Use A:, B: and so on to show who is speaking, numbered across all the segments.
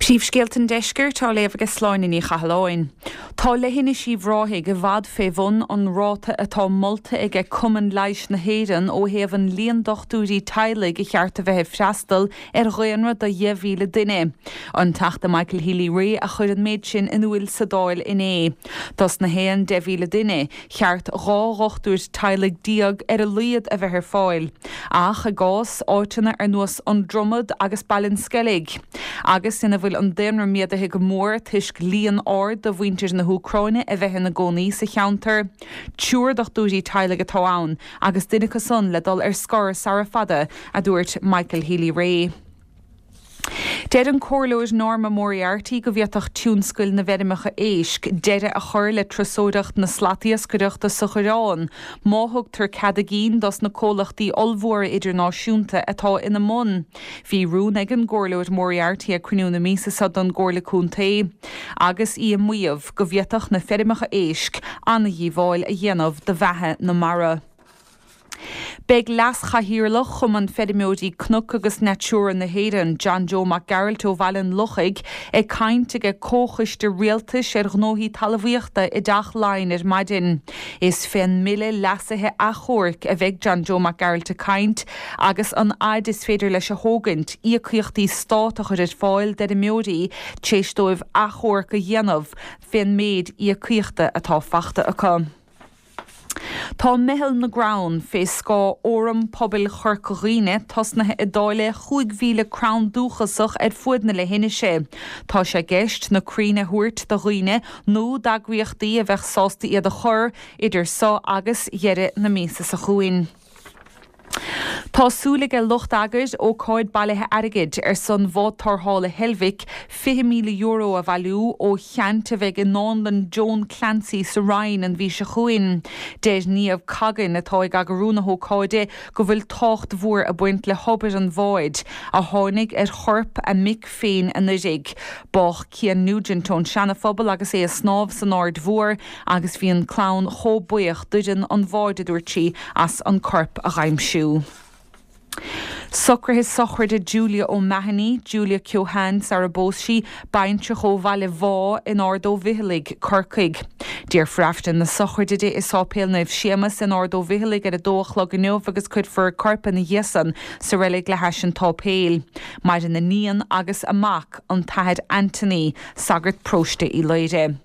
A: Príomhscéalta an Deiscirt á léamh aige Sláine Ní Chathalláin. Tá Leithinis Uíbh Ráthaigh i bhfad fé bhun an ráta atá molta aige Cumann Leighis na hÉireann ó thaobh an líon dochtúirí teaghlaigh a cheart a bheith ag freastal ar dhaonra de 10,000 duine. An Teachta Michael Healy-Rae a chuir an méid sin in úil sa Dáil inné. Dos na haon 10,000 duine, cheart 12 dhochtúir teaghlaigh ar a laghad a bheith ar fáil, ach i gcás áiteanna ar nós An Dromad agus Baile an Sceilg, agus ina bhfuil an daonra méadaithe go mór toisc líon ard de mhuintir na hÚcráine a bheith ina gcónaí sa cheantar, triúr dochtúirí teaghlaigh atá ann agus duine acu san le dul ar scor sara fada, a dúirt Michael Healy-Rae. Deir an Comhairleoir Norma Moriarty go bhféadfadh tionscail na bhfeirmeacha éisc deireadh a chur le turasóireacht na slatiascaireachta sa Choireán má thugtar cead a gcinn dos na comhlachtaí ollmhóra idirnáisiúnta atá ina mbun. Bhí rún ag an gComhairleoir Moriarty ag cruinniú na míosa seo don gComhairle Contae agus í ag maíomh go bhféadfadh na feirmeacha éisc an-dhíobháil a dhéanamh do bheatha na mara. Beidh Leas-Chathaoirleach Chumann Feirmeoirí Cnoc agus Natura na hÉireann, John Joe Mac Gearailt ó Bhaile an Lochaigh, ag caint ag Comhchoiste Rialtais ar Ghnóthaí Talmhaíochta i dTeach Laighean ar maidin. Is fén mBille Leasaithe Achomhairc a bheidh John Joe Mac Gearailt ag caint agus an fhaid is féidir leis a thógaint íocaíochtaí stát a chur ar fáil d'fheirmeoirí tar éis dóibh achomharc a dhéanamh fén méid íocaíochta atá fachta acu. Tá Meitheal na gCrann, fé scáth Fhóram Pobail Chorca Dhuibhne, tosnaithe ag dáileadh 5,000 crann dúchasach ar fuaid na leithinise. Tá sé i gceist na crainn a thabhairt do dhaoine nó d'eagraíochtaí a bheadh sásta iad a chur, idir so agus dheireadh na míosa seo chugainn. Tá súil aige lucht eagair ócáid bailithe airgid ar son bhád tarrthála Heilbhic €20,000 a bhailiú ó cheant a bheidh i nDánlann Joan Clancy sa Rinn an mhí seo chugainn. Deir Niamh Coggan, atá ag eagrú na hócáide, go bhfuil tábhacht mhór ag baint le hobair an bháid, a tháinig ar chorp a mic féin anuraidh. Bádh Cian Nugent ón Seana-Phobal agus é ag snámh san Aird Mhór agus bhí an clann chomh buíoch d'fhoireann an bháid, a dúirt sí, as an corp a dh'aimsiú. Socruithe sochraide Julia O'Mahony, Julia Keohane sara bpós sí, baintreach ó Bhaile Bhá in Ard Ó bhFicheallaigh, Corcaigh. Déarfar Aifreann na sochraide di i Sáipéal Naomh Séamas in Ard Ó bhFicheallaigh ar a dó a chlog inniu agus cuirfear a corp ina dhiaidh san sa reilig le hais an tsáipéil. Maireann a níon agus a mac, an tAthair Anthony, sagart paróiste Uí Laoghaire.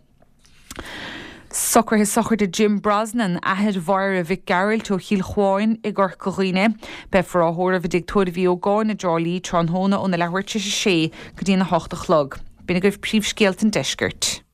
A: Socruithe sochraide Jim Brosnan, athair Mháire Mhic Gearailt ó Chill Chuáin i gCorca Dhuibhne. Beifear á thórramh i dTigh Tórraimh Uí Ógáin i dTrá Lí tráthnóna óna leathuair tar éis a sé go dtí'n 8 a chlog. B'in agaibh príomhscéalta an deiscirt.